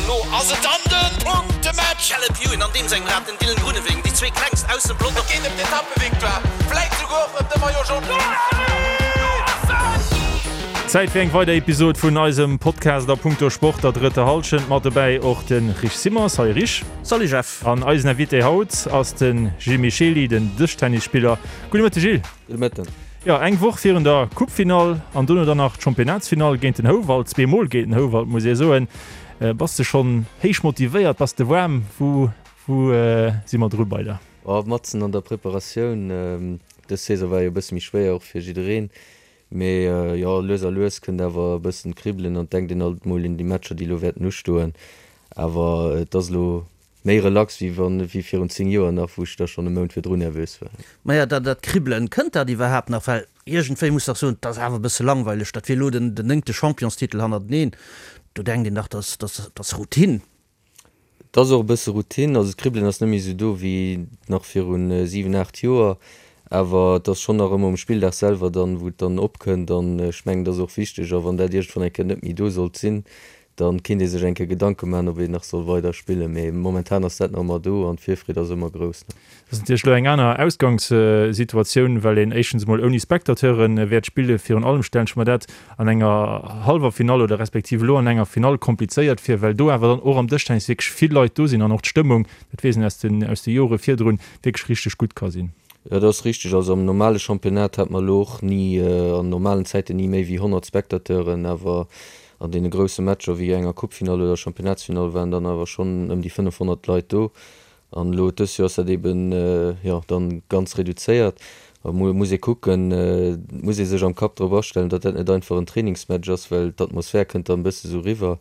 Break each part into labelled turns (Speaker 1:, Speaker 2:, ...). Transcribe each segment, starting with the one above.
Speaker 1: An lo ass et dann de Punktematch!
Speaker 2: Caleb Ewan an deem sengem Rad, den Dylan Groenewegen, déi zwee klengst aus dem Pelotong.
Speaker 1: Et geet ëm d'Etappevictoire, vläit souguer och ëm de Maillot Jaune.
Speaker 3: Zäit fir eng weider Episod vun eisem Podcast a punkto Sport, der drëtter Hallschent. Mat dobäi och de Rich Simmer. Salut Rich.
Speaker 2: Salut Jeff.
Speaker 3: An eisen Invité haut ass de Gilles Michely, den Dëschtennisspiller. Gudde Mëtteg Gilles.
Speaker 4: Gudde Mëtten.
Speaker 3: Jo, eng Woch virun der Coupefinall an dono dann nach d'Championnatsfinall géint den Houwald, zweemol géint den Houwald muss ee soen. Bass de schonn héich motivéiert? Bass de waarm? Wou wou si mer dru bei der?
Speaker 4: Oh, matzen an der Preparatioun. Dës Saison war jo e bësse méi schwéier och fir jiddereen. Mee jo, lues a lues kënnt awer e bëssen d'Kribbelen an et denkt een alt mol un déi Matcher, déi elo wäerten ustoen. Awer et ass elo Méi relax wéi wann wéi virun 10 Joer nach, wou ech da schonn e Mount virdrun nervös war.
Speaker 2: Maja, dat dat Kribbelen, kënnt dat iwwerhaapt nach? Well iergendwéi muss dach soen, 't ass awer e bësse langweileg, dat wier elo den den néngte Championstitel hannerteneen, do denkt een dach, dass dass dass Routine.
Speaker 4: Et ass och e bësse Routine, also d'Kribbelen ass net méi esou do wéi nach virun 7, 8 Joer, awer et ass schonn nach ëmmer um Spilldag selwer dann, wou et dann opkënnt an ech mengen, et ass och wichteg a wann dat iergendwann eng Kéier net méi do sollt sinn, Dann kinnt ee sech eng Kéier Gedanke maachen, ob een nach soll weider spillen, mee momentan ass dat nach ëmmer do an d'Virfreed ass ëmmer grouss.
Speaker 3: Dat ass natierlech elo eng aner Ausgangssituatioun, well een éischtens emol ouni Spectateure wäert spillen. Virun allem stellen ech mer dat an enger hallwer Finall oder respektiv elo an enger Finall komplizéiert vir, well do awer dann och am Dëschtennis wierklech vill Leit do sinn an och d'Stëmmung, dat weess een aus den aus de Jore virdrun, wierklech richteg gutt ka sinn.
Speaker 4: Jo, dat ass richteg. Also am normale Championnat hat mer elo och ni, an normalen Zäiten ni méi wéi 100 Spectateuren, awer An deene grousse Matcher wéi enger Coupefinall oder Championnatsfinall waren dann awer schonn ëm déi 500 Leit do. An elo dës Joer ass dat eben, jo, dann ganz reduzéiert. A muss ee kucken, et muss ee sech am Kapp drop astellen, datt dat net einfach en Trainingsmatch ass, well d'Atmosphär kënnt dann e bësse sou riwwer.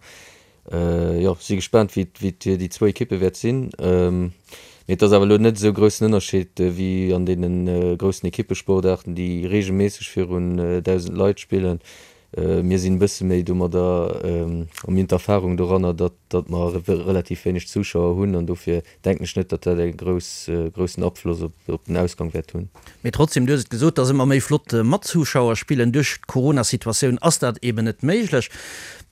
Speaker 4: Jo, si gespaant wéi déi zwou Ekippe wäert sinn. Mee et ass awer elo net esou groussen Ënnerscheed wéi an deene groussen Ekippesportaarten, déi reegelméisseg virun 1.000 Leit spillen. Mir sinn e bësse méi domadder, a mir hunn d'Erfahrung doranner, datt, datt mer relativ wéineg Zuschauer hunn an dofir denken ech net, datt dat e grouss, groussen Afloss op, op den Ausgang wäert hunn.
Speaker 2: Mee trotzdem, du hues et gesot, et ass ëmmer méi flott mat Zuschauer spillen. Duerch d'Corona-Situatioun ass dat eben net méiglech.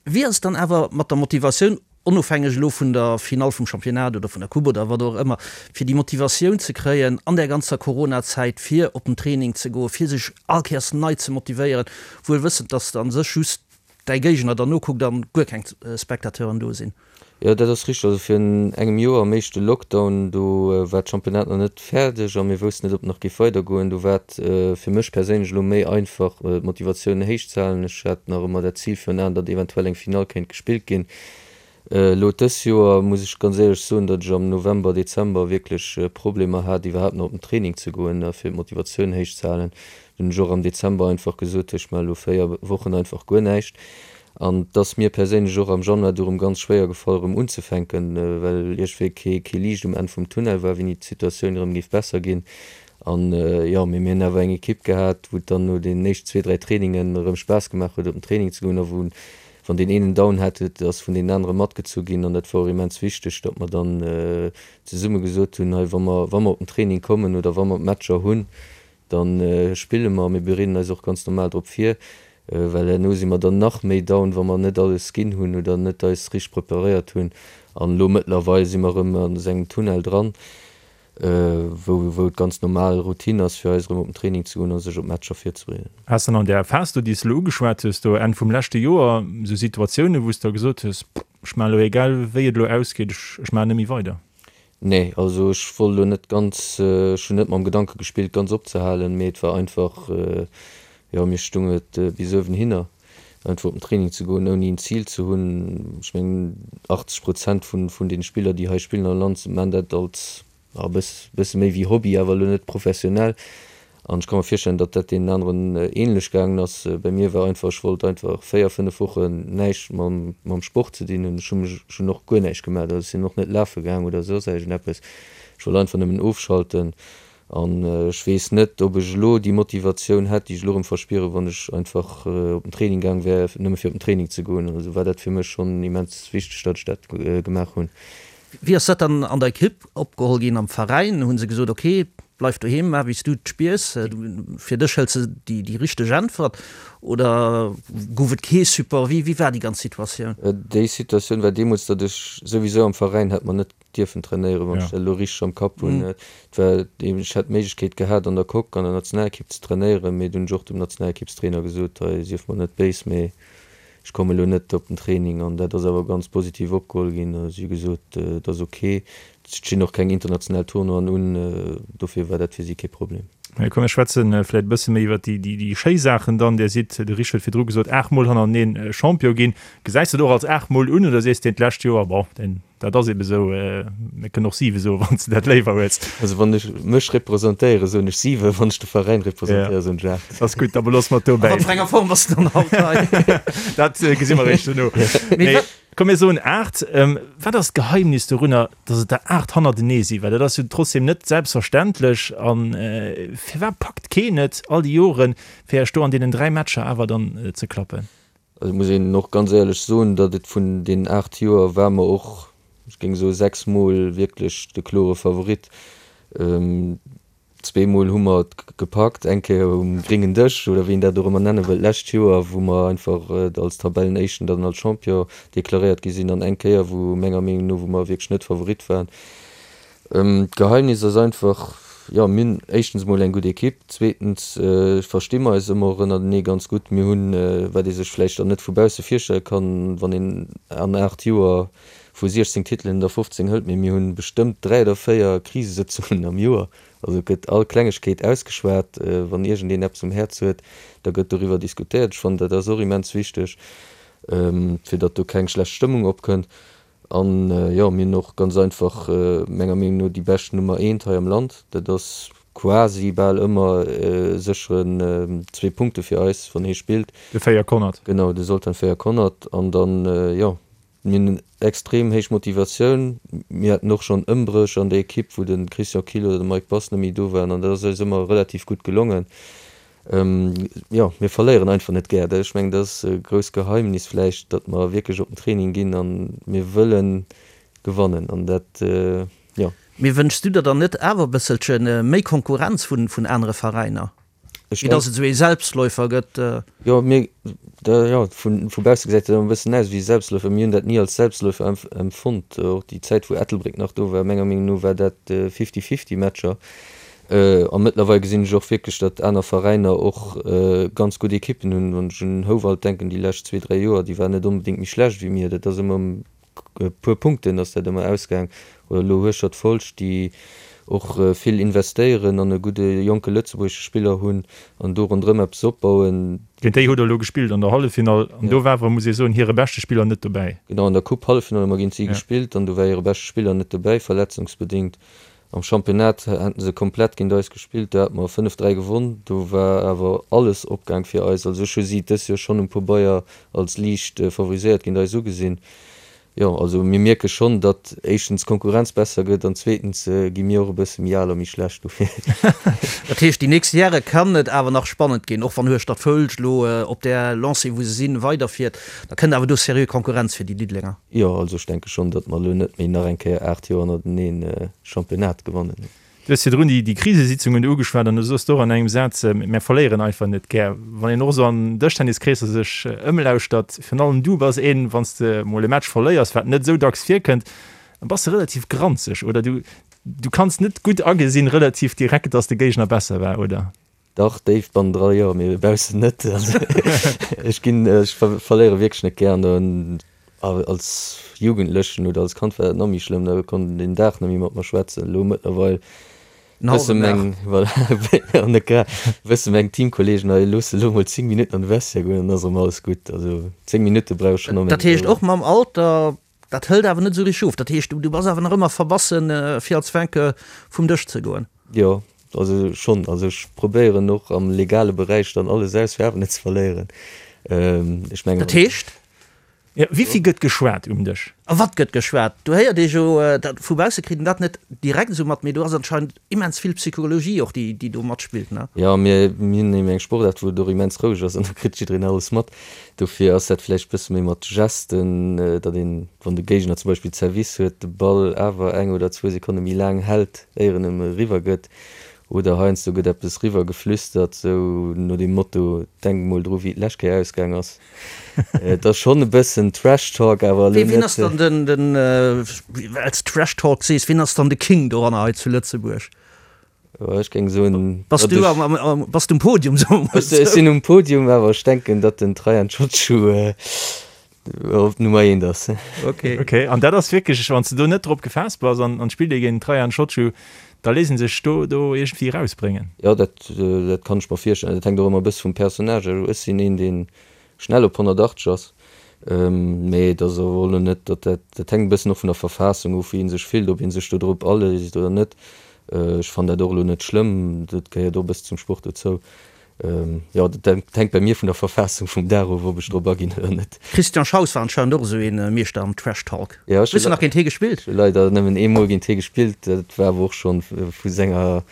Speaker 2: Wéi ass et dann awer mat der Motivatioun? onofhängeg elo vun der Finall vum Championnat oder vun der Coupe oder wat och ëmmer, fir déi Motivatioun ze kréien an där ganzer Corona-Zäit, fir op den Training ze goen, fir sech all Kéiers nei ze motivéieren, wuel wëssend, dass a sech just däi Géigner der nokuckt an guer keng Spectateuren do sinn.
Speaker 4: Jo, dat ass richteg. Also virun engem Joer am éischte Lockdown, do war d'Championnat nach net fäerdeg a mir woussten net, ob et nach géif weidergoen. Do war et fir mech perséinlech elo méi einfach, d'Motivatioun héich ze halen. Ech hat nach ëmmer dat Zil virun Aen, datt eventuell eng Finall kéint gespillt ginn. Elo dës Joer muss ech ganz éierlech soen, datt ech am November, Dezember wierklech Problemer hat, iwwerhaapt nach op den Training ze goen a fir d'Motivatioun héich ze halen. Dunn hunn ech och am Dezember einfach gesot, ech maache elo 4 Wochen einfach guer näischt. An et ass mir perséinlech och am Januar du rëm ganz schwéier gefall erëm unzefänken, well iergendwéi kee kee Liicht um Enn vum Tunnel war, wéini d'Situatioun erëm géif besser ginn. An jo, mee mir hunn awer eng Ekipp gehat, wou et dann no den éischten zwee, dräi Trainingen erëm Spaass gemaach huet op den Training ze goen a wou, wann deen een en Down hat, huet, ass vun deenen anere matgezu ginn. An dat war och immens wichteg, datt mer dann zesumme gesot hunn, hei wa mer, wa mer op den Training kommen oder wa mer d'Matcher hunn, Da spille mer, mir bereeden eis och ganz normal drop vir, well herno si mer dann nach méi down, wa mer net alles ginn hunn oder net eis richteg preparéiert hunn. An elo mëttlerweil si mer erëm an esou engem Tunnel dran, wou wou et ganz normal Routine ass, fir eis erëm op den Training ze goen a sech op d'Matcher virzebereeden.
Speaker 3: Has dann an där Phas do, déi s de elo ugeschwat hues, do Enn vum leschte Joer, esou Situatiounen, wou s de da gesot hues, Ech maachen elo, egal wéi et elo ausgeet, ech ech maachen net méi weider?
Speaker 4: Nee, also ech wollt elo net ganz, ech hunn net mam Gedanke gespillt ganz opzehalen, mee et war einfach, jo mir stung et bis uewenhinner einfach op den Training ze goen ouni en Zil ze hunn. Ech mengen 80 Prozent vun vun den Spiller déi hei spillen am Land maan dat als e bësse méi wéi Hobby, awer elo net professionell. An ech ka mer virstellen, datt dat deenen aneren ähnlech gaangen ass. Bei mir war einfach, ech wollt einfach 4, 5 Wochen näischt mam, mam Sport ze dinn hunn. Ech hu mech, ech hunn och guer näischt gemaach, also ech sinn och net lafe gaang oder soss iergendeppes. Ech wollt einfach nëmmen ofschalten. An ech weess net, ob ech elo déi Motivatioun hätt, déi ech elo erëm verspieren, wann ech einfach op den Training gaang wär, nëmme fir op den Training ze goen. Also war dat fir mech schonn immens wichteg, datt ech dat gemaach hunn.
Speaker 2: Wéi ass dat dann an der Ekipp opgeholl ginn, am Veräin? Hu se gesot, ok,. Bleif doheem, maach wéi s du et spiers, fir dech hëls de déi richteg Äntwert oder gouf et kee Support? Wéi wéi war déi ganz Situatioun?
Speaker 4: Déi Situatioun war deemools, datt ech souwisou am Veräin hätt mer net dierfen trainéieren, wann ech dat elo richteg am Kapp hunn. Et war eben, ech hätt d'Méiglechkeet gehat an der Coque an der Nationalekipp ze trainéieren, mee dunn hunn ech och dem Nationalekippstrainer gesot, hei sief mer net béis, mee Ech komme elo net op den Training an dat ass awer ganz positiv opgeholl ginn. Si hu gesot, et ass ok, et stinn och keng international Tournoien un, dofir war dat fir si kee Problem.
Speaker 3: Komm mir schwätze vläicht e bësse méi iwwer déi schéi Saachen dann. Dir sidd, de Rich huet virdru gesot, aachtmol hannereneen Champion ginn. Gesäis de et och als aachtmol un oder sees de, d'lescht Joer, bon, deen Dat ass ebe sou. Mir kënnen och siwe soen, wann s de dat léiwer hues.
Speaker 4: Also wann ech mech representéieren, soen ech siwe, wann ech de Veräin representéieren, soen ech
Speaker 3: 8. Ass gutt, da beloosse mer et dobäi.
Speaker 2: A wat fir enger Form bass de dann haut hei?
Speaker 3: Dat gesi mer eréischt duerno. Mee komm, mir soen 8. Wat ass d'Geheimnis dorunner, datt et der 8 hannertenee sinn? Well dat ass jo trotzdeem net selbstverständlech. A firwat packt keen et all déi Joren, fir Iech do an deenen 3 Matcher awer dann ze klappen?
Speaker 4: Also muss een och ganz éierlech soen, datt et vun deenen 8 Joer war mer och, ech géing soe 6 Mol wierklech de klore Favorit. Zweemol hu mer et gepackt, eng Kéier um gréngen Dësch oder wéi een dat och ëmmer nenne wëllt, d'lescht Joer, wou mer einfach als Tabellenéischten dann als Champion deklaréiert gi sinn an eng Kéier, wou menger Meenung no, wou mer wierklech net Favorit waren. D'Geheimnis ass einfach, jo, mir hunn éischtens emol eng gutt Ekipp, zweetens versti mer eis ëmmer och ënnertenee ganz gutt. Mir hunn, wat ee sech vläicht dann net vu bausse virstelle kann, wann een an 8 Joer vu 16 Titelen der 15 hëlt, mee mir hunn bestëmmt 3 oder 4 Krisesëtzungen am Joer. Also et gëtt all Klengegkeet ausgeschwat, wann iergendeen eppes um Häerz huet, da gëtt doriwwer diskutéiert. Ech fannen, dat ass och immens wichteg, fir datt do keng schlecht Stëmmung opkënnt. An jo, mir hunn och ganz einfach menger Meenung no déi bescht Nummer eent hei am Land. Dat ass quasi bal ëmmer e sécheren zwee Punkte fir eis, wann hie spillt.
Speaker 3: De Fejer Konert.
Speaker 4: Genau, de Zoltan Fejer Konert. An dann, jo, mir hunn extrem héich Motivatioun. Mir haten och schonn Ëmbréch an der Ekipp, wou de Christian Kill oder de Mike Bass net méi do waren. An dat ass eis ëmmer relativ gutt gelongen. Jo, mir verléieren einfach net gär. Ech mengen, dat ass e grousst Geheimnis vläicht, datt mer wierklech op den Training ginn a mir wëlle gewannen an dat, jo.
Speaker 2: Mee wënschs du der dann net awer e bësselche méi Konkurrenz vun anere Veräiner, wéi datt et esou ee Selbstläufer gëtt?
Speaker 4: Jo, mir, jo, vu bausse gesäit dat ëmmer e bëssen aus wéi e Selbstläufer. Mir hunn dat ni als Selbstläufer empfonnt. Och déi Zäit, wou Ettelbréck nach do war, menger Meenung no war dat Fifty-fifty-Matcher. A mëttlerweil gesinn ech och wierklech, datt aner Veräiner och ganz gutt Ekippen hunn. Wann ech un Houwald denken, déi lescht zwee, dräi Joer, déi waren net onbedéngt méi schlecht wéi mir. Dat ass ëmmer ëm e puer Punkten ass dat ëmmer ausgaang. Oder elo Hueschtert-Folscht, déi och vill investéieren an e gudde jonke lëtzebuergesche Spiller hunn an do ronderëm eppes opbauen.
Speaker 3: Géint déi hutt Der elo gespillt an der Halleffinall an do war awer, muss ee soen, hire beschte Spiller net dobäi.
Speaker 4: Genau, an der Coupe-Halleffinall hu mer géint si gespillt an do war hire beschte Spiller net dobäi, verletzungsbedéngt. Am Championnat haten se komplett géint eis gespillt, do hate mer 5, 3 gewonn. Do war awer alles opgaang fir eis. Also ech hu si dës Joer schonn um Pobeier als liicht favoriséiert géint eis ugesinn. Jo, also mir mierke schonn, datt éischtens d'Konkurrenz besser gëtt an zweetens gi mir och e bësse méi al a méi schlecht dofir.
Speaker 2: Dat heescht, déi nächst Jahre kann et awer nach spannend ginn, och wann Hueschtert-Foulsch elo op där Lancée wou se sinn weiderfiert, da kënnt awer do seriö Konkurrenz fir déi Diddelenger.
Speaker 4: Jo, also ech denke schonn, datt mer elo net méi nach eng Kéier 8 Joer hannerteneen Championnat gewannen.
Speaker 3: Du hues virdrun déi Krisesitzungen do ugeschwat an du soss do och an engem Saz, Mär verléieren einfach net gär. Wann een och esou an Dëschtenniskreesser sech ëmlauschtert, virun allem du bass een, wann s de mol e Match verléiers, wat net esou dacks virkënnt, da bass de relativ granzeg, oder? Du, du kanns net gutt agesinn, relativ direkt, datt de Géigner besser war, oder?
Speaker 4: Dach, déif bannendra jo, mee baussen net. Also ech ginn, ech verléiere wierklech net gär an als Jugendlechen oder als Kand war dat nach méi schlëmm, da konnt een den Dag net méi mat mer schwätzen. Elo mëttlerweil wësse meng, voilà, an net grad, wësse meng Teamkolleegen, hei looss elo mol 10 Minutten an de Vestiaire goen, dann ass erëm alles gutt. Also 10 Minutte brauch ech schonn
Speaker 2: ëm. Dat heescht och mam Alter, dat hëlt awer net esou richteg of. Dat heescht, du bass awer nach ëmmer verbassen, fir als Vainqueur vum Dësch ze goen.
Speaker 4: Jo, also schonn. Also ech probéieren och am legale Beräich dann alles aus, fir awer net ze verléieren. Ech mengen.
Speaker 2: Dat heescht?
Speaker 3: Jo, wéi vill gëtt geschwat um Dësch?
Speaker 2: A wat gëtt geschwat? Do héiert ee jo, dat vu bausse kritt een dat net direkt esou mat, mee do ass anscheinend immens vill Psychologie och, déi, déi do matspillt, ne?
Speaker 4: Jo, mir hunn eben eng Sportaart, wou et och immens roueg ass an do kritt jiddereen alles mat. Dofir ass dat vläicht bësse méi mat Gesten, datt een, wann de Géigner zum Beispill Service huet, de Ball awer eng oder zwou Sekonne méi laang hält, éier en em eriwwer gëtt. Oder heiansdo gëtt eppes riwwer geflüstert, sou no dem Motto, Denk mol dru wéi et d'lescht Kéier ausgaang ass. Et ass schonn e bëssen Trash Talk, awer elo net.
Speaker 2: Wien ass dann den, den, well s Trash Talk sees, wien ass dann de King doranner hei zu Lëtzebuerg?
Speaker 4: Ech géing soen,
Speaker 2: Bass du am, am, am, bass du um Podium, soe mer
Speaker 4: mol esou. Ech sinn um Podium, awer ech denken, datt den Traian Ciociu op Nummer eent ass.
Speaker 3: Ok. Ok, an dat ass wierklech, wann s de do net drop gefaasst bass an an d'spillt ee géint den Traian Ciociu, da léisst ee sech do do iergendwéi erausbréngen.
Speaker 4: Jo, dat, dat kann ech mer virstellen. Dat hänkt och ëmmer e bësse vum Personnage of. Ech sinn een, dee schnell op 180 ass, mee et ass awer och elo net, datt dat, dat hänkt e bëssen och vun der Verfassung of, wéi ee sech fillt, ob ee sech do drop aléisst oder net. Ech fannen dat och elo net schlëmm, dat gehéiert och e bësse zum Sport dozou. Jo, dat hänkt bei mir vun der Verfassung vum Dag of, ob ech drop aginn oder net.
Speaker 2: Christian Schaus war anscheinend och esou ee Meeschter am Trash Talk. Jo, ech Hues du nach géint hie gespillt?
Speaker 4: hu leider nëmmen eemol géint hie gespillt. Dat war awer och schonn vu senger,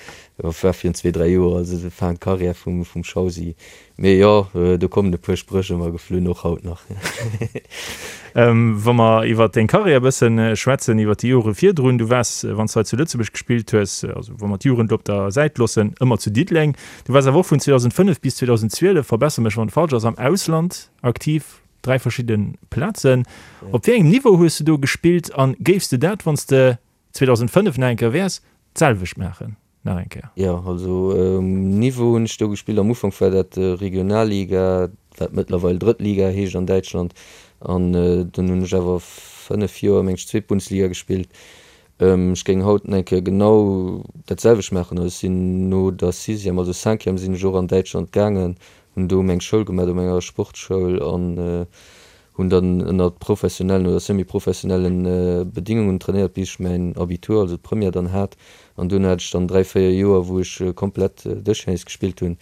Speaker 4: jo, war virun zwee, dräi Joer, also Fin de carrière vum Schausi. Mee jo, do kommen e puer Spréch ëmmer geflunn, och haut nach.
Speaker 3: Wa mer iwwer deng Karriär e bësse schwätzen, iwwer déi Jore virdrun, du waars, wann s de hei zu Lëtzebuerg gespillt hues, also wa mer d'Jugend op der Säit loossen, ëmmer zu Diddeleng. Du waars awer och vun 2005 bis 2012, verbesser mech wann et falsch ass, am Ausland aktiv, dräi verschidde Plazen. Op wéi engem Niveau hues de do gespillt a géifs de dat, wann s de 2005 nach eng Kéier wäers, d'selwecht maachen? nach eng Kéier.
Speaker 4: Jo, also um Niveau hunn ech do gespillt. Am Ufank war dat Regionalliga, wat mëttlerweil Drëttliga heescht an Däitschland. An dunn hunn ech awer 5 Joer, meng ech, zweet Bundesliga gespillt. Ech géing haut nach eng Kéier genau dat selwecht maachen. Also ech sinn no der Sixième, also Cinquième sinn ech och an Däitschland gaangen, hunn do meng Schoul gemaach, op enger Sportschoul an Hunn dann ënner professionellen oder semi-professionellen Bedingungen trainéiert bis ech mäin Abitur, also d'Première dann hat. An duerno hat ech dann 3, 4 Joer wou ech komplett Dëschtennis gespillt hunn.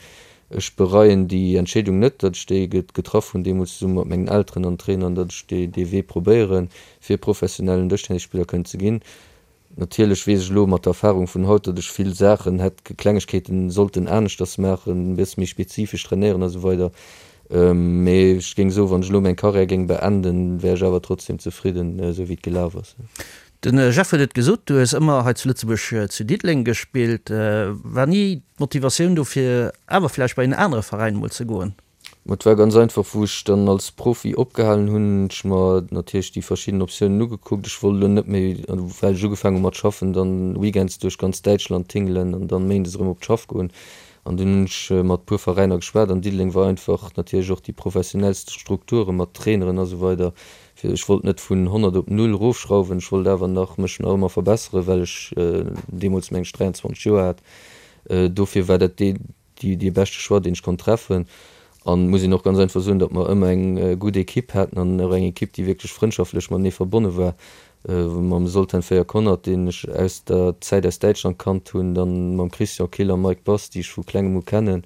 Speaker 4: Ech bereien déi Entscheedung net, datt ech déi getraff hunn deemools zesumme mat mengen Elteren an Trainern, datt ech dee Wee probéieren fir professionellen Dëschtennisspiller kënnen ze ginn. Natierlech weess ech elo mat der Erfahrung vun haut, datt ech vill Saachen hätt, Klengegkeeten sollten aneschters maachen, e bësse méi spezifesch trainéieren a sou weider. Mee ech géing soen, wann ech elo meng Karriär géing beenden, wär ech awer trotzdem zefridden, esou wéi et gelaf ass.
Speaker 2: De Jeff huet et gesot, du hues ëmmer hei zu Lëtzebuerg zu Diddeleng gespillt. War ni d'Motivatioun do fir awer vläicht bei en anere Veräin emol ze goen?
Speaker 4: Ma et war ganz einfach, wou ech dann als Profi opgehalen hunn, hunn ech mer natierlech déi verschidden Optiounen ugekuckt. Ech wollt elo net méi, well ech ugefaangen hu mat schaffen, dann weekends duerch ganz Däitschland tingelen an dann méindes erëm op d'Schaff goen. An dunn hunn ech mat puer Veräiner geschwat an Diddeleng war einfach natierlech och déi professionellst Strukture mat Traineren a sou weider. Fir ech wollt net vun 100 op null erofschrauwen, ech wollt awer nach mech nach ëmmer verbesseren, well ech deemools meng ech 23 Joer hat. Dofir war dat dee dee beschte Choix, deen ech konnt treffen. An muss een och ganz einfach soen, datt mer ëmmer eng gutt Ekipp haten an och eng Ekipp, déi wierklech frëndschaftlech matenee verbonne war. Mam Zoltan Fejer-Konnerth, deen ech aus der Zäit aus Däitschland kannt hunn, dann mam Christian Kill a Mike Bass, déi ech vu klengem u kennen,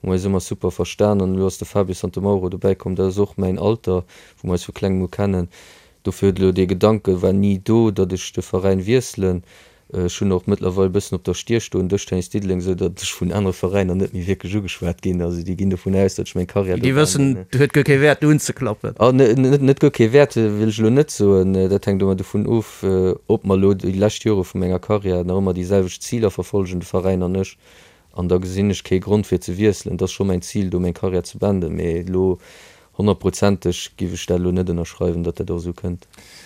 Speaker 4: hu mer eis ëmmer super verstan. An elo ass de Fabio Santomauro dobäi komm, dat ass och mäin Alter, wou mer eis vu klengem u kennen. Dofir huet elo dee Gedanke war ni do, datt ech de Veräin wiesselen. Ech hunn och mëttlerweil e bëssen op der Stier stoen, Dëschtennis Diddeleng, esou datt ech vun anere Veräiner net méi wierklech ugeschwat ginn. Also déi ginn dovun aus, datt ech meng Karriär
Speaker 2: do Déi wëssen, beenden. Et huet guer kee Wäert do unzeklappen.
Speaker 4: Ah, net guer kee Wäert wëll ech elo net soen. Dat hänkt ëmmer dovun of, ob mer elo déi lescht Jore vu menger Karriär nach ëmmer déi selwecht Ziler verfollegen, de Veräin an ech. An da gesinn ech kee Grond fir ze wiesselen. Et ass scho mäin Zil do meng Karriär ze beenden, mee elo honnertprozenteg giff ech dat elo net ënnerschreiwen, datt dat och esou kënnt.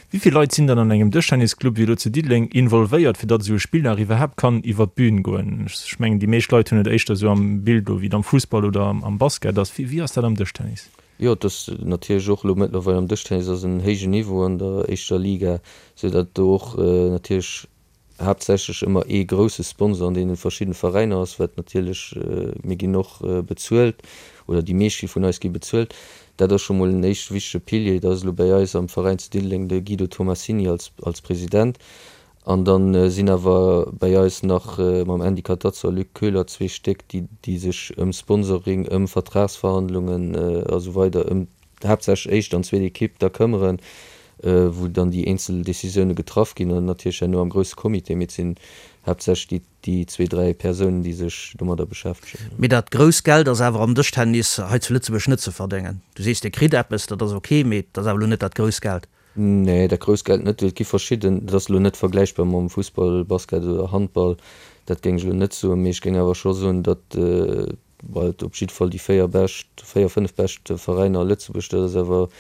Speaker 3: Wéi vill Leit sinn dann an engem Dëschtennisclub wéi elo zu Diddeleng involvéiert, fir datt esou e Spilldag iwwerhaapt kann iwwer d'Bün goen? Ech mengen déi meescht Leit hunn et éischter esou am Bild elo wéi et am Fussball oder am Basket ass. Wéi ass dat am Dëschtennis?
Speaker 4: Jo, et ass natierlech och elo mëttlerweil am Dëschtennis ass en héijen Niveau an der éischter Liga, esou datt do och natierlech haaptsächlech ëmmer ee grousse Sponsor an deene verschiddene Veräiner ass, wat natierlech, mir ginn och bezuelt, oder déi meescht gi vun eis gi bezuelt, dat ass scho mol en éischte wichtege Pilier. Dat ass elo bäi eis am Veräin zu Diddeleng de Guido Tomassini als als President. An da sinn awer bäi eis nach mam Andy Catazzo a Luc Köhler zwee Stéck, déi déi sech ëm Sponsoring, ëm Vertragsverhandlungen a sou weider, ëm haaptsächlech éischt an zweet Ekipp da këmmeren, wou dann déi eenzel Decisioune getraff ginn an natierlech herno am grousse Comité, mee et sinn haaptsächlech déi déi zwee, dräi Persounen, déi sech domadder beschäftegen.
Speaker 2: Mee dat grousst Geld ass awer am Dëschtennis hei zu Lëtzebuerg net ze verdéngen. Du sees, Dir kritt eppes, dat ass ok, mee et ass awer elo net dat grousst Geld.
Speaker 4: Nee, dat grousst Geld net. Et gi verschidden, dat ass elo net vergläichbar mam Fussball, Basket oder Handball. Dat géing ech elo net soen, mee ech géing awer scho soen, datt et op jiddwer Fall déi 4 bescht, 4, 5 bescht Veräiner a Lëtzebuerg, dat ass awer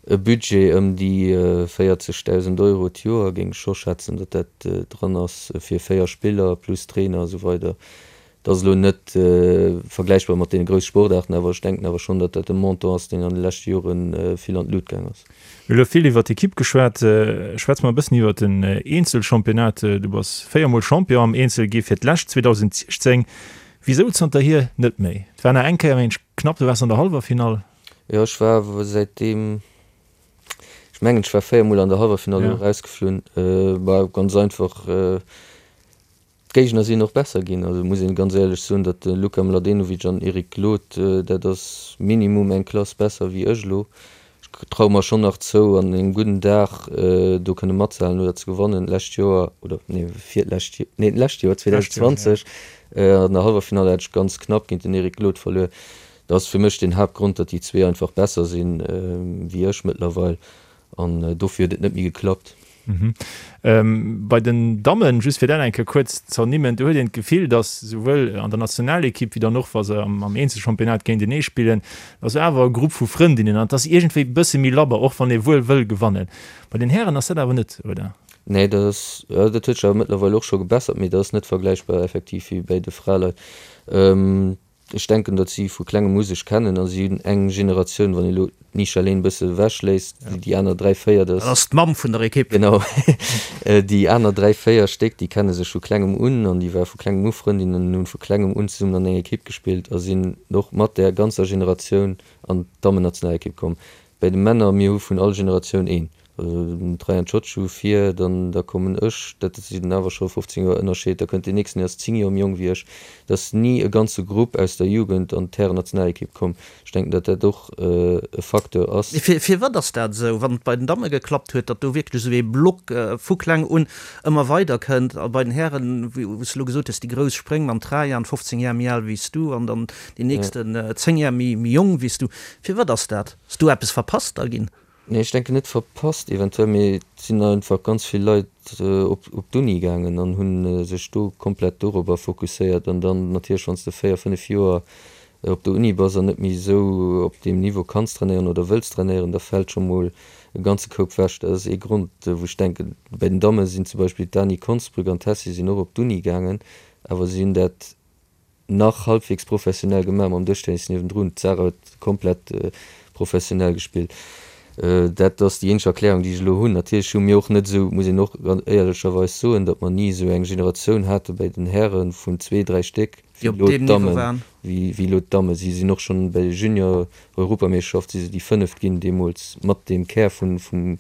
Speaker 4: e Budget ëm déi 40.000 Euro d'Joer, géing ech scho schätzen, datt dat dran ass fir 4 Spiller plus Trainer a sou weider. Dat ass elo net vergläichbar mat deene grousse Sportaarten, awer ech denken awer schonn, datt dat e Montant ass, deen an de leschte Jore vill an d'Lut gaang ass.
Speaker 3: Mir hu elo vill iwwer d'Ekipp geschwat. Schwätze mer e bëssen iwwer den Eenzelchampionnat. Du bass véiermol Champion am Eenzel gi fir d'lescht 2016. Wisou zanterhier net méi? Et war nach eng Kéier mengen ech knapp, du waars an der Hallwerfinall.
Speaker 4: Jo, ech war säitdeem, ech mengen ech war 4 mol an der Hallwerfinall elo erausgeflunn. Bah, ganz einfach, d'Géigner sinn och besser ginn. Also muss een ganz éierlech soen, datt de Luka Mladenovic an Eric Glod, dat ass minimum eng Klass besser wéi ech elo. Ech traue mer schonn nach zou, an engem gudden Dag do kënne matzehalen oder ze gewannen. D'lescht Joer, oder nee, virlescht, nee d'lescht Joer, 2020, an der Hallwerfinall hat ech ganz knapp géint den Eric Glod verluer. Dat ass fir mech den Haaptgrond, datt déi zwee einfach besser sinn wéi ech mëttlerweil an dofir huet et net méi geklappt.
Speaker 3: Bei den Dammen, just fir dat eng Kéier kuerz z'ernimmen, do huet een d'Gefill, datt souwuel an der Nationalekipp wéi dann och wa se am Eenzelchampionnat géintenee spillen, datt ass awer e Grupp vu Frëndinnen an et ass iergendwéi e bësse méi labber, och wann ee wuel wëll gewannen. Bei den Hären ass dat awer net, oder?
Speaker 4: Nee, dat ass, dat huet sech awer mëttlerweil och scho gebessert, mee dat ass net vergläichbar effektiv wéi bäi de Fraleit. Ech denken, datt si vu klengem u sech kennen a si hunn eng Generatioun, wann ee lo d'Nisha Lehn e bësse ewech léisst, déi aner 3, 4,
Speaker 2: dat ass d'Mamm vun der Ekipp.
Speaker 4: Genau, déi aner 3, 4 Stéck, déi kenne sech vu klengem un an déi ware vu klengem u Frëndinnen an hunn vu klengem un zesummen an enger Ekipp gespillt a sinn och mat där ganzer Generatioun an d'Dammennationalekipp komm. Bäi de Männer, mir hu vun all Generatioun een. Also den Trajan Ciociu vir, dann da kommen ech, dat sinn awer scho 15 Joer Ënnerscheed, da kënnt deen nächsten, deen ass 10 Joer méi jonk wéi ech. Et ass ni e ganze Grupp aus der Jugend an d'Härennationalekipp komm. Ech denken, datt dat och e Facteur ass.
Speaker 2: Mee firwat ass dat esou, wann et bei den Damme geklappt huet, datt do wierklech esou ee Block vu kleng un ëmmer weider kënnt a bei den Hären, wou s de elo gesot hues, déi grouss Spréng mam Trajan, 15 Jar méi al wéi s du an dann deen nächsten 10 Jar méi jonk wéi s du. Firwat ass dat? Ass do eppes verpasst da ginn?
Speaker 4: Nee, ech denken net verpasst eventuell, mee et sinn einfach ganz vill Leit op op d'Uni gaangen an hu sech do komplett dorobber fokusséiert. An dann natierlech, wann s de 4, 5 Joer op der Uni bass an net méi esou op deem Niveau kanns trainéieren oder wëlls trainéieren, da fält scho mol e ganze Koup wech. Dat ass ee Grond, wou ech denken. Bei den Damme sinn zum Beispill d'Dani Konsbrück an d'Tessy sinn och op d'Uni gaangen, awer si hunn dat nach halbwegs professionell gemaach mam Dëschtennis niewendrun. D'Sarah huet komplett professionell gespillt. Dat ass déi eenzeg Erklärung, déi ech elo hunn. Natierlech hu mir och net esou, muss een och ganz éierlecherweis soen, datt mer ni esou eng Generatioun hate bäi den Häre vun zwee, dräi Stéck,
Speaker 2: wéi elo
Speaker 4: d'Dammen, wéi elo d'Damme. Si sinn och schonn bei de Junior-Europameeschterschaft si se déi Fënneft ginn deemools mat deem Kär vun, vum,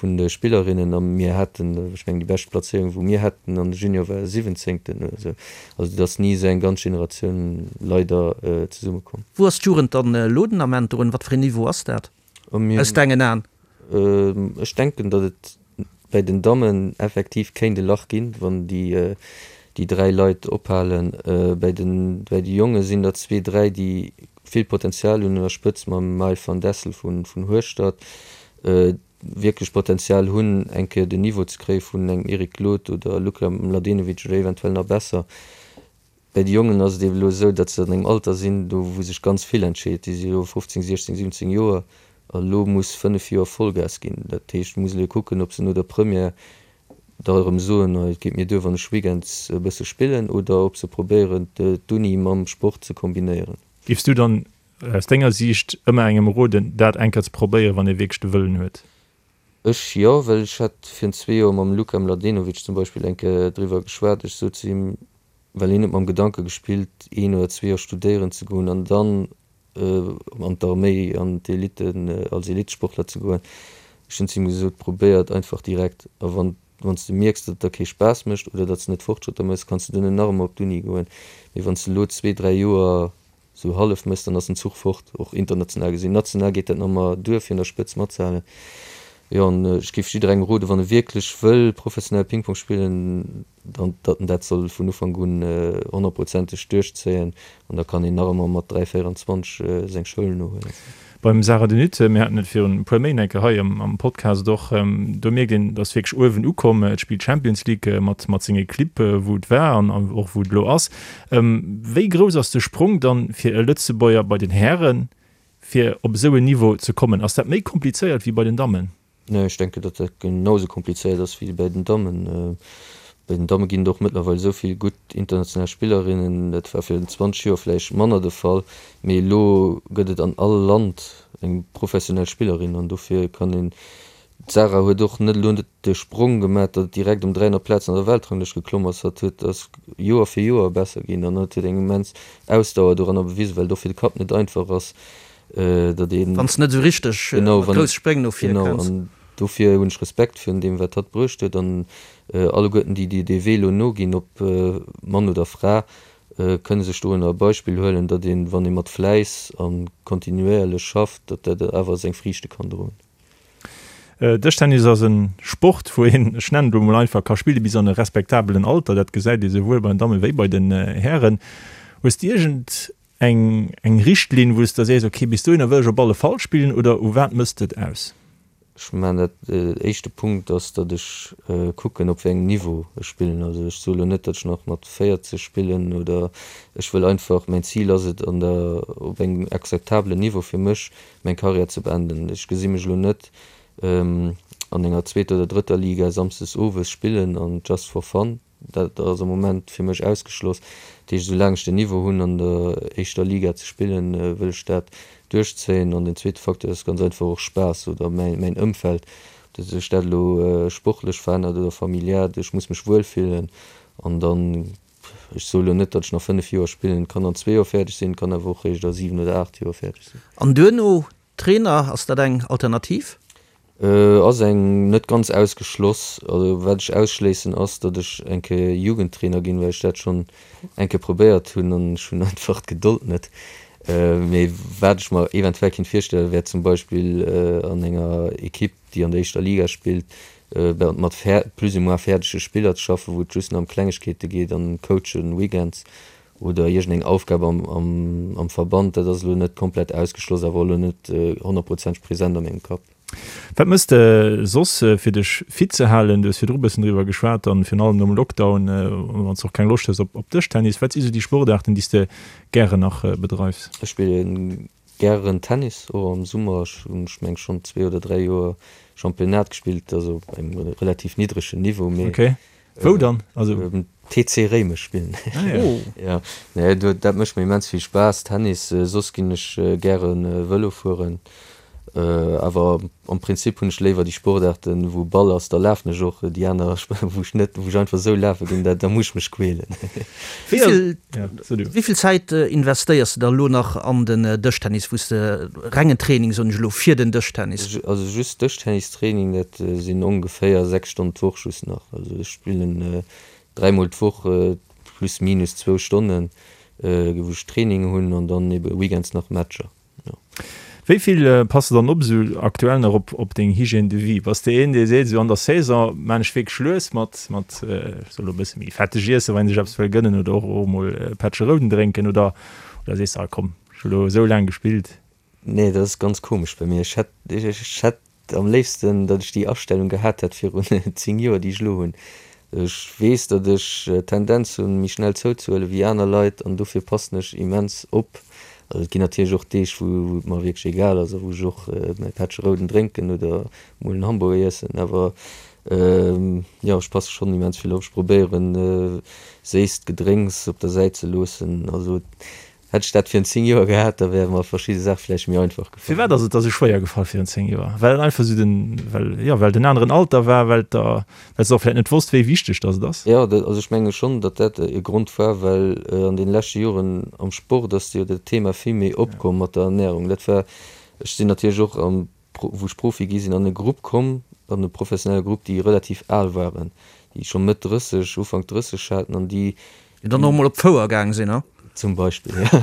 Speaker 4: vun de Spillerinnen a mir haten, ech mengen déi bescht Plazéierung wou mir haten an de Junior war siwwenzéngten oder esou. Also et ass ni esou eng ganz Generatioun leider zesumme komm.
Speaker 2: Wou ass d'Jugend dann elo den Ament drun? Wat fir een Niveau ass dat aus dengen Aen?
Speaker 4: Ech denken, datt et bäi den Dammen effektiv kéint e Lach ginn, wann déi déi 3 Leit ophalen. Bäi den bäi de Jonge sinn der zwee, dräi déi vill Potenzial hunn, un der Spëtz mam Maël van Dessel vun Hueschtert, wierklech Potenzial hunn, eng Kéier den Niveau ze kréie vun engem Eric Glod oder Luka Mladenovic oder eventuell nach besser. Bäi de Jongen ass et eeben elo esou, datt se an engem Alter sinn, do wou sech ganz vill entscheet. Déi si elo 15, 16, 17 Joer a elo muss 5 Joer Vollgas ginn. Dat heescht, et muss elo kucken, ob se no der Première da erëm soen, et geet mir duer, wann ech weekends e bësse spillen, oder ob se probéieren, d'Uni mam Sport ze kombinéieren.
Speaker 3: Géifs du dann Aus denger Siicht ëmmer engem roden, dat eng Kéier ze probéieren, wann ee wierklech de Wëllen huet?
Speaker 4: Ech jo, well ech hat virun zwee Joer mam Luka Mladenovic zum Beispill eng Kéier driwwer geschwat. Ech sot zu him, well hien huet mam Gedanke gespillt, een oder zwee Joer studéieren ze goen an dann an d'Arméi, an d'Elite, als Elitesportler ze goen. Ech hunn zu him gesot, probéier et einfach direkt a wann wann s de mierks, datt et der kee Spaass mécht oder datt s de net Fortschrëtter méchs, kanns de duerno nach ëmmer op d'Uni goen. Mee wann s de elo zwee, dräi Joer Sou hallef mëss, dann ass den Zuch fort, och international gesinn. National geet dat nach ëmmer duer, fir un der Spëtz matzehalen. Jo, an ech géif jidderengem roden, wann e wierklech wëll professionell Ping-Pong spillen, dann, datt en dat soll vun Ufank un honnertprozenteg duerchzéien an da kann een nach ëmmer mat 3, 24 seng Schoul nohuelen.
Speaker 3: Beim Sarah De Nutte, mir haten et virun e puer Méint eng Kéier hei am Podcast och, do mierkt een, et ass wierklech uewen ukomm. Et spillt Champions League mat mat senge Clibb, wou et war an och wou et elo ass. Wéi grouss ass de Sprong dann fir e Lëtzebuerger bei den Hären, fir op esou en Niveau ze kommen? Ass dat méi komplizéiert wéi bei den Dammen?
Speaker 4: Nee, ech denken, datt dat genau esou komplizéiert ass wéi bäi den Dammen. Bei den Damme ginn et och mëttlerweil esou vill gutt international Spillerinnen. Dat war virun 20 Joer vläicht manner de Fall, mee elo gëtt et an all Land eng professionell Spillerin an dofir kann een, d'Sarah huet och net elo net de Sprong gemaach, datt et direkt ëm 300 Plazen an der Weltranglëscht geklomm ass. Hatt huet ass Joer fir Joer besser ginn an hatt huet eng immens Ausdauer doranner bewisen, well et och fir de Kapp net einfach ass, datt een.
Speaker 2: Wann s de net esou richteg mat grousse Spréng no vir
Speaker 4: kënns. Genau, an dofir hunn ech Respekt virun deem, wat hatt bruecht huet. An alleguerten déi, déi dee Wee elo noginn, ob Mann oder Fra, kënne sech dorunner e Beispill huelen, datt een, wann ee mat Fläiss a kontinuéierlech schafft, datt dat awer seng Friichte kann droen.
Speaker 3: Dëschtennis ass e Sport, wou een, ech nennen et elo mol einfach, ka spille bis an e respektabelen Alter. Dat gesäit ee souwuel bei den Damme wéi bei den Hären. Hues de iergend Eng eng Richtlinn, wou s de sees, ok, bis dohinner wëll ech op alle Fall spillen, oder u wat mëss de et aus?
Speaker 4: Ech man dat, éischte Punkt ass, datt ech kucken, op wéi engem Niveau ech spillen. Also ech soe lo net, datt ech nach mat 40 spillen oder ech wëll einfach, mäin Zil ass et, an der, op engem akzeptabelen Niveau fir mech meng Karriär ze beenden. Ech gesi mech elo net an enger zweeter oder drëtter Liga samsdes owes spillen an just for fun. Dat ass am Moment fir mech ausgeschloss. Dat heescht, esoulaang ech den Niveau hunn an der éischter Liga ze spillen, wëll ech dat duerchzéien. An den zweete Facteur ass ganz einfach och Spaass oder mäin Ëmfeld, ob sech dat elo sportlech verännert oder familiär. Ech muss mech wuel fillen an dann, ech soe elo net, datt ech nach 5 Joer spillen, et kann an zwee Joer fäerdeg sinn, et kann awer och réischt a 7 oder 8 Joer fäerdeg sinn.
Speaker 2: An duerno Trainer, ass dat eng Alternativ?
Speaker 4: Ass eng net ganz ausgeschloss. Also wat ech ausschléissen ass, datt ech eng Kéier Jugendtrainer ginn, well ech dat schonn eng Kéier probéiert hunn an ech hunn einfach d'Gedold net. Mee wat ech mer eventuell kinnt virstellen, wär zum Beispill an enger Ekipp, déi an der éischter Liga spillt, mat plus ou moins fäerdege Spiller ze schaffen, wou et just nach ëm Klengegkeete geet an Coachen weekends oder iergendeng Aufgab am Verband, dat ass elo net komplett ausgeschloss, awer och elo net honnertprozenteg present a mengem Kapp.
Speaker 3: Wat mëss de soss fir dech fit ze halen? Du hues virdru bëssen driwwer geschwat an virun allem nom Lockdown, wann s de och keng Loscht hues op Dëschtennis. Wat si sou déi Sportaarten, déi s de gären nach bedreifs?
Speaker 4: Ech spillen gären Tennis, och am Summer. Ech hunn, ech meng schonn zwee oder dräi Joer Championnat gespillt, also op engem relativ niddregen Niveau,
Speaker 3: mee Wou dann? Also.
Speaker 4: Beim TC Réimech spillen. Ah ja. Oh. Ja, nee, do, dat mécht mir immens vill Spaass, Tennis. Soss ginn ech gäre Vëlo fueren. Awer am Prinzip hunn ech léiwer déi Sportaarten, wou Ball ass, da lafen ech och. Déi aner, wou ech net, wou ech einfach esou lafe ginn, da, da muss ech mech quälen.
Speaker 2: Wéi vill, wéi vill Zäit investéiers de da elo nach an den Dëschtennis, wou s de rengen Training, soen ech elo, fir den Dëschtennis?
Speaker 4: Also just Dëschtennistraining, dat sinn ongeféier 6 Stonnen d'Woch just nach. Also ech spillen dräimol d'Woch plus minus zwou Stonnen, wou ech Training hunn an dann ebe weekends nach Matcher. Jo.
Speaker 3: Wéi vill pass de dann op esou aktuell nach op op deng Hygiène de vie? Bass de een dee seet, esou an der Saison maan ech wierklech lues mat mat ech soll elo e bësse méi fetteg iessen, wann een sech eppes wëll gënnen oder och och emol e Pättche Rouden drénken oder oder sees de, ah komm ech hu lo esou laang gespillt?
Speaker 4: Nee, dat ass ganz komesch bei mir. Ech hätt, ech hätt am léifsten, datt ech déi Astellung gehat hätt virun 10 Joer, déi ech elo hunn. Ech weess, datt ech d'Tendenz hunn, méi schnell zouzehuelen wéi aner Leit an dofir passen ech immens op. Also et ginn natierlech och Deeg, wou et mer wierklech egal ass a wou ech och mäi Pättche Rouden drénken oder mol en Hamburger iessen. Awer jo, ech passe schonn immens vill op. Ech probéieren, séisst Gedrénks op der Säit ze loossen. Also Hätt ech dat virun 10 Joer gehat, da wäre mer verschidde Saache vläicht méi einfach
Speaker 3: gefall. Firwat ass et der sou schwéier gefall virun 10 Joer? Well et einfach sou den, well, jo, well et en aneren Alter war, well der, well s de och vläicht net wosst, wéi wichteg dass et ass?
Speaker 4: Jo, dat, also ech menge schonn, datt dat e Grond war, well an deene leschte Joren am Sport ass jo dat Thema vill méi opkomm mat der Ernärung. Dat war, ech sinn natierlech och am, wou ech Profi gi sinn, an e Grupp komm, an e professionelle Grupp, déi relativ al waren, déi scho Mëtt 30, Ufank 30 haten an déi
Speaker 2: Déi dann och mol op d'Fouer gaang sinn, ha?
Speaker 4: Zum Beispill, jo.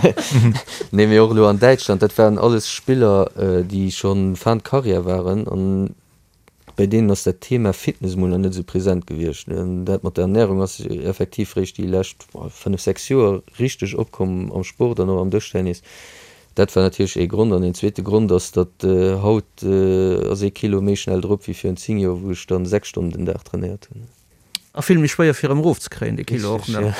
Speaker 4: Nee, mee och elo an Däitschland, dat waren alles Spiller, déi scho fin de carrière waren an bei deenen ass dat Thema Fitness emol nach net esou present gewiescht. An dat mat der Ernärung ass effektiv réischt déi lescht 5, 6 Joer richteg opkomm am Sport an och am Dëschtennis. Dat war natierlech ee Grond. An een zweete Grond ass, datt haut ass ee Kilo méi schnell drop wéi virun 10 Joer, wou ech dann 6 Stonnen den Dag trainéiert hunn.
Speaker 2: A vill méi schwéier fir erëm erof ze kréien, dee Kilo och nach.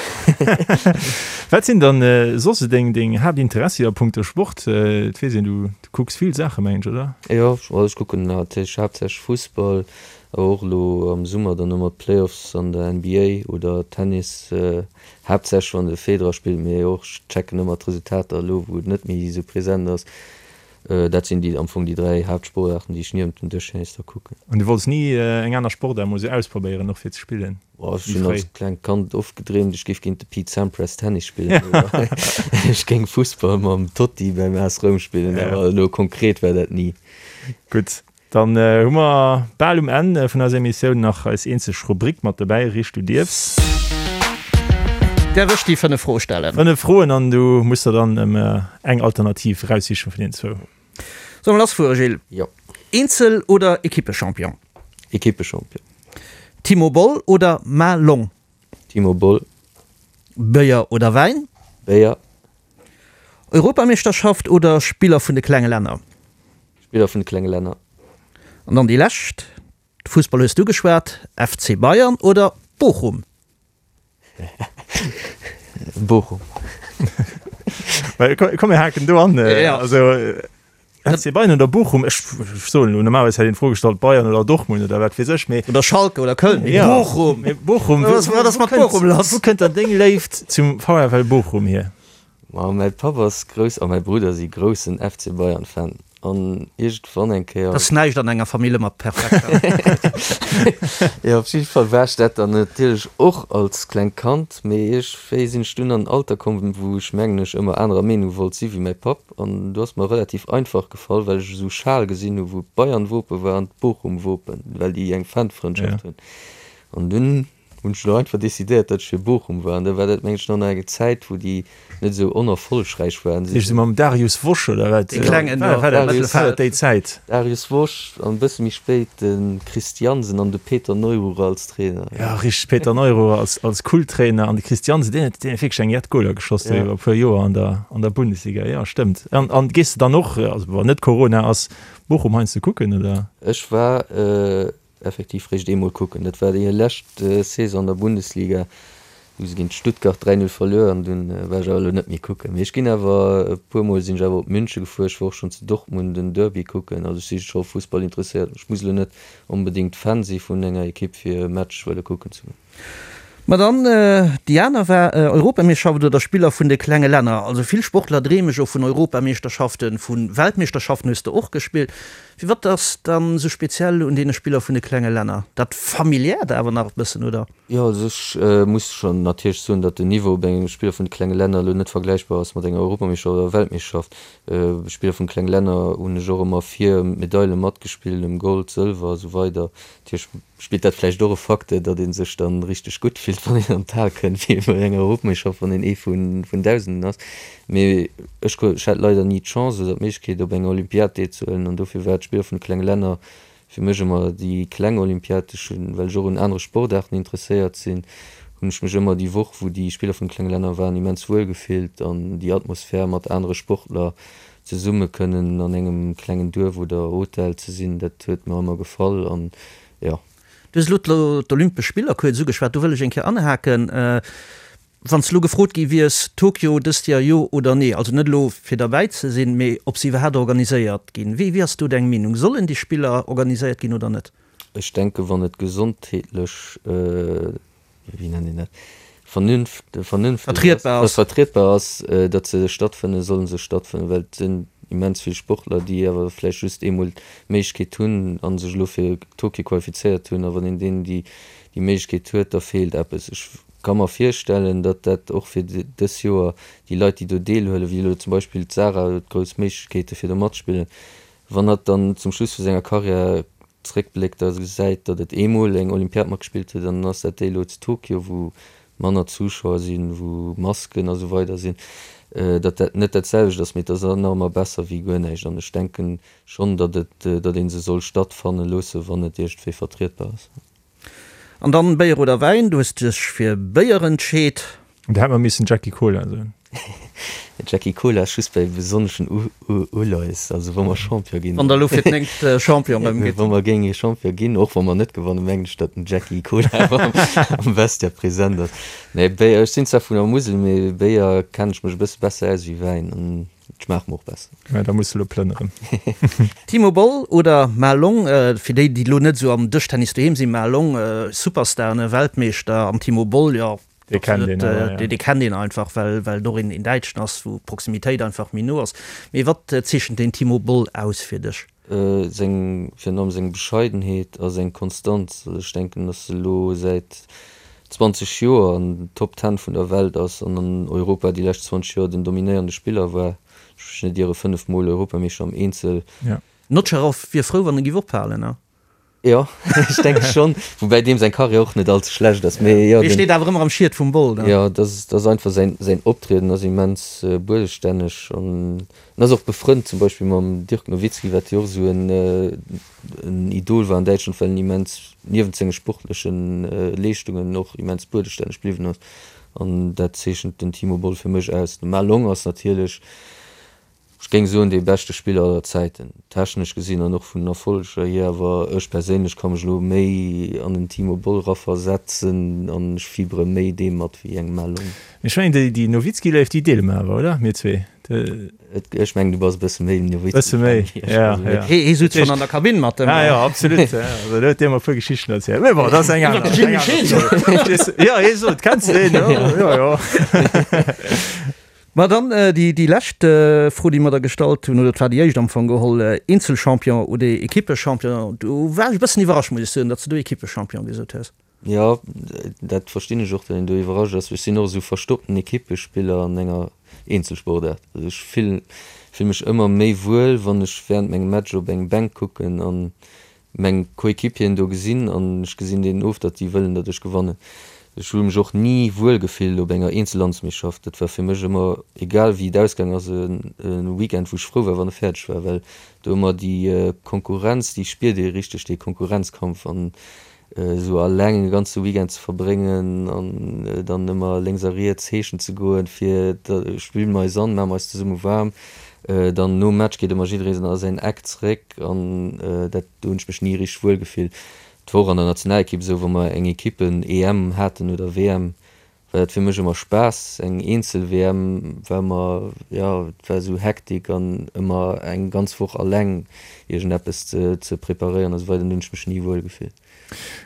Speaker 3: Wat sinn dann soss deng deng Haaptinteressi a punkto Sport? Et weess een, du kucks vill Saache mengen ech, oder?
Speaker 4: Jo, also ech kucken natierlech haaptsächlech Fussball, awer och elo am Summer dann ëmmer d'Playoffs an der NBA oder Tennis, haaptsächlech wann de Federer spillt, mee och ech checken ëmmer d'Resultater elo wou et net méi esou present ass. Dat sinn déi am Fong déi 3 Haaptsportaarten, déi ech niewent dem Dëschtennis da kucken.
Speaker 3: An du wollts ni eng aner Sportaart mol sou ausprobéieren, och fir ze spillen?
Speaker 4: Oh, ech hunn als klengt Kand oft gedreemt, ech géif géint de Pete Sampras Tennis spillen oder ech géing Fussball mam Totti beim AS Roum spillen, awer elo konkret war dat ni.
Speaker 3: Gutt, Dann hu mer bal um Enn vun eiser Emissioun nach eis eenzeg Rubrik mat dobäi, Richt du dierfs.
Speaker 2: Däerf ech déi 5 Froe stellen?
Speaker 3: 5 Froen an du muss der dann eng Alternativ eraussichen vun deenen zwou.
Speaker 2: Solle mer lassfuere, Gilles?
Speaker 4: Jo.
Speaker 2: Eenzel oder Equippechampion?
Speaker 4: Equippechampion.
Speaker 2: Timo Boll oder Ma Long?
Speaker 4: Timo Boll.
Speaker 2: Béier oder Wäin?
Speaker 4: Béier.
Speaker 2: Europameeschterschaft oder Spiller vun de klenge Länner?
Speaker 4: Spiller vun de klenge Länner.
Speaker 2: An dann déi lescht, Fussball hues du geschwat, FC Bayern oder Bochum?
Speaker 4: Bochum.
Speaker 3: Komm mir haken do an. Also FC Bayern oder Bochum, ech soen elo, normalerweis hätt een d'Fro gestallt Bayern oder Dortmund oder wat weess ech, mee.
Speaker 2: Oder Schalke oder Köln, mee Bochum!
Speaker 3: Mee Bochum,
Speaker 2: wat ass mat Bochum lass?
Speaker 3: Wou kënnt dann deng Léift zum VfL Bochum hier?
Speaker 4: Ma mäi Papp ass grouss a mäi Brudder si groussen FC Bayern Fan an iergendwann eng Kéier.
Speaker 2: Ass näischt an enger Famill ëmmer perfekt.
Speaker 4: Jo, op jidde Fall war ech dat dann natierlech och als klengt Kand, mee iergendwéi sinn ech dunn an en Alter komm, wou ech mengen ech ëmmer anerer Meenung wollt si wéi mäi Papp an do ass mer relativ einfach gefall, well ech esou Schal gesinn hu wou d'Bayern-Wope war an d'Bochum-Wopen, well déi eng Fanfrëndschaft hunn an dunn Hunn ech elo einfach decidéiert, datt ech fir Bochum war. An da war dat, mengen ech, nach nach eng Zäit, wou déi net esou onerfollegräich waren.
Speaker 3: Heescht esou mam Darius Wosch oder wat?
Speaker 2: Dee klengen
Speaker 3: do am Mëttelfeld. Déi Zäit.
Speaker 4: Darius Wosch an e bësse méi spéit de Chris Jansen an de Peter Neururer als Trainer.
Speaker 3: Jo, richteg, Peter Neururer als, als Kulttrainer an de Chris Jansen, deen huet, deen huet wierklech eng jett Goler geschoss do iwwer e puer Joer an der, an der Bundesliga. Jo, stëmmt. An, an gees de dann och, also wann net Corona ass, Bochum heiansdo kucken, oder?
Speaker 4: Ech war Effektiv réischt eemol kucken. Dat war déi lescht Saison an der Bundesliga, hu se géint Stuttgart 3, 0 verluer an dunn war ech awer elo net méi kucken. Mee ech ginn awer, e puer mol sinn ech awer op Münche gefuer, ech war och schonn zu Dortmund en Derby kucken. Also ech si scho Fussball interesséiert. Ech muss elo net onbedéngt Fan si vun enger Ekipp fir e Match wëlle kucken ze goen.
Speaker 2: Ma dann déi aner war Europameeschterschaft oder Spiller vun de klenge Länner. Also vill Sportler dreeme jo vun Europameeschterschaften, vu Weltmeeschterschaften hues de och gespillt. Firwat ass dann esou speziell un deene Spiller vun de klenge Länner? Dat familiäert awer nach e bëssen, oder?
Speaker 4: Jo, also ech muss schonn natierlech soen, datt den Niveau op engem Spiller vun de klenge Länner elo net vergläichbar ass mat enger Europameeschterschaft oder Weltmeeschterschaft. Spiller vun de klenge Länner hunn ech och ëmmer fir ëm d'Medaile matgespillt, ëm Gold, Sëlwer a sou weider. Natierlech Spillt dat vläicht och e Facteur, datt ee sech dann richteg gutt fillt, wann een an d'Hal kënnt, wéi bei enger Europmeeschterschaft, wann een ee vun Dausenden ass. Mee ech hat leider ni d'Chance oder d'Méiglechkeet, op enger Olympiad deelzehuelen an dofir war d'Spiller vun de klenge Länner fir mech ëmmer déi kleng Olympiad. Ech hunn, well ech och un anere Sportaarten interesséiert sinn, hunn ech mech ëmmer déi Woch, wou déi Spiller vun de klenge Länner waren, immens wuel gefillt an déi Atmosphär mat anere Sportler zesumme kënnen an engem klengen Duerf oder Hotel ze sinn, dat huet mer ëmmer gefall an jo.
Speaker 2: Du hues elo d'Olympesch Spiller kuerz ugeschwat, do wëll ech eng Kéier anhaken. Wann s de elo gefrot gi wiers, Tokio dëst Joer jo oder nee, also net elo fir derbäi ze sinn, mee ob se iwwerhaapt organiséiert ginn, wéi ass do deng Meenung? Sollen déi Spiller organiséiert ginn oder net?
Speaker 4: Ech denken, wann et gesondheetlech wéi nennt een dat, vernünft, vernünfteg
Speaker 2: Vertrietbar
Speaker 4: ass, vertrietbar ass, datt se stattfënnen, solle se stattfënnen, well et sinn immens vill Sportler, déi awer vläicht just eemol d'Méiglechkeet hunn a sech elo fir Tokio qualifizéiert hunn. A wann een deenen déi déi Méiglechkeet huet, da feelt eppes. Ech ka mer virstellen, datt dat och fir dës Joer déi Leit, déi do deelhuelen, wéi elo zum Beispill d'Sarah huet grouss Méiglechkeete fir do matzespillen, wann hatt dann zum Schluss vu senger Karriär zréckbléckt a gesäit, datt et eemol eng Olympiad matgespillt huet an dann ass dat déi elo zu Tokio, wou manner Zuschauer sinn, wou Masken a sou weider sinn, datt dat net dat selwecht ass, mee et ass nach ëmmer besser wéi guer näischt. An ech denken schonn, datt et, datt ee se soll stattfanne loosse wann et iergendwéi vertrietbar ass.
Speaker 2: An dann Béier oder Wäin? Du hues dech fir Béier entscheet.
Speaker 3: Da hätt mer missen Jackie Cola soen.
Speaker 4: Jackie Cola ass just bei besonneschen Uleies, also wa mer Champion ginn.
Speaker 2: Wann der elo fir d'néngt Champion erëm
Speaker 4: gitt. Wa mer géinge Champion ginn, och wa mer net gewannen, mengen ech, datt den Jackie Cola am Vestiaire present ass. Nee, Béier, ech sinn zwar vun der Musel, mee Béier kennen ech mech e bësse besser aus wéi Wäin an et schmaacht mer och besser.
Speaker 3: Mä da muss de elo plënneren.
Speaker 2: Timo Boll oder Ma Long, fir déi, déi elo net esou am Dëschtennis doheem sinn, Ma Long, Superstar, ne, Weltmeeschter, an Timo Boll, jo,
Speaker 3: Dee kennt een awer,
Speaker 2: jo. Dee kennt een einfach, well well et och een Däitschen ass, wou d'Proximitéit einfach méi no ass. Mee wat zeechent den Timo Boll aus fir dech?
Speaker 4: Seng, virun allem seng Bescheidenheet a seng Konstanz. Also ech denken, datt e lo säit 20 Joer an den Top Ten vun der Welt ass an an Europa déi lescht 20 Joer den dominéierende Spiller war. Ech mech net iere, 5 Mol Europameeschter am Eenzel.
Speaker 2: Notcherow wier frou, wann e giff ophalen, ne?
Speaker 4: Jo, ech denke schonn, woubäi deem seng Karriär och net all ze schlecht ass, mee jo.
Speaker 2: Dee steet awer ëmmer am Schiet vum Boll,
Speaker 4: ne? Jo, dat ass, dat ass einfach säin, säin Optrieden ass immens buedestänneg an en ass och befrënnt zum Beispill mam Dirk Nowitzki, wat jo och esou en, en Idol war an Däitschland, well en immens, niewent senge sportleche Leeschtungen, och immens buedestänneg bliwwen ass an dat zeechent den Timo Boll fir mech aus. De Ma Long ass natierlech Ech géing soen dee beschte Spiller aller Zäiten, technesch gesinn an och vun den Erfolleger hier, awer ech perséinlech ka mech elo méi an den Timo Boll raversetzen an ech fibere méi deem mat wéi engem Malone.
Speaker 3: Mee ech mengen déi déi Nowitzki-Léift déi deele mer awer, oder? Mir zwee.
Speaker 4: Ech mengen du bass e bësse méi
Speaker 3: Nowitzki-Fan. Bësse méi,
Speaker 2: ja, ja. Hee sutz schonn an der Kabinn mat dem.
Speaker 3: Ah jo, absolut, ja. Also do huet dee mer e puer Geschichten erzielt. Mee bon, dat ass eng aner. Iwwer de Jimmy Scheen. Jo, hee sot, kenns de deen? Jo, jo.
Speaker 2: Ma dann déi lescht Fro, déi mer der gestallt hunn, oder et war déi éischt am Fong geholl, Eenzelchampion oder Ekippechampion? Do war ech e bëssen iwwerrascht, muss ech soen, datt s de do Ekippechampion gesot hues.
Speaker 4: Jo, dat verstinn ech och, datt een do iwwerrascht ass. Ech sinn och esou verstoppten Ekippespiller an enger Eenzelsportaart. Also ech fill mech ëmmer méi wuel, wann ech wärend mengem Match op eng Bänk kucken an meng Coéquipieren do gesinn an ech gesinn deenen of, datt déi wëllen, datt ech gewannen. Ech hu mech och ni wuel gefillt op enger Eenzellandsmeeschtschaft. Dat war fir mech ëmmer, egal wéi et ausgaang ass, e Weekend, wou ech frou war, wann e fäerdeg war, well do ëmmer déi Konkurrenz, déi spiert ee richteg, dee Konkurrenzkampf an esou alleng e ganze Weekend ze verbréngen an dann ëmmer lénks a riets heeschen ze goen, fir spille mer eis an, maache mer eis zesumme waarm. Dann nom Match geet ëmmer jidderee a säin Eck zeréck an dat, do hunn ech mech ni richteg wuel gefillt. Et war och an der Nationalekipp esou, wa mer eng Ekippen-EM haten oder WM, war dat fir mech ëmmer Spaass. Eng Eenzel-WM war ëmmer, jo, et war esou Hektik an ëmmer eng ganz Woch alleng iergendeppes ze preparéieren a sou weider, do hunn ech mech ni wuel gefillt.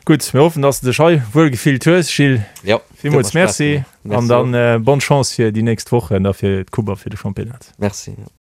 Speaker 3: Gutt, mir hoffen, dass de dech hei wuel gefillt hues, Gilles.
Speaker 4: Jo,
Speaker 3: Villmools Merci an dann bonne Chance fir déi nächst Wochen a fir d'Coupe a fir de Championnat.
Speaker 4: Merci.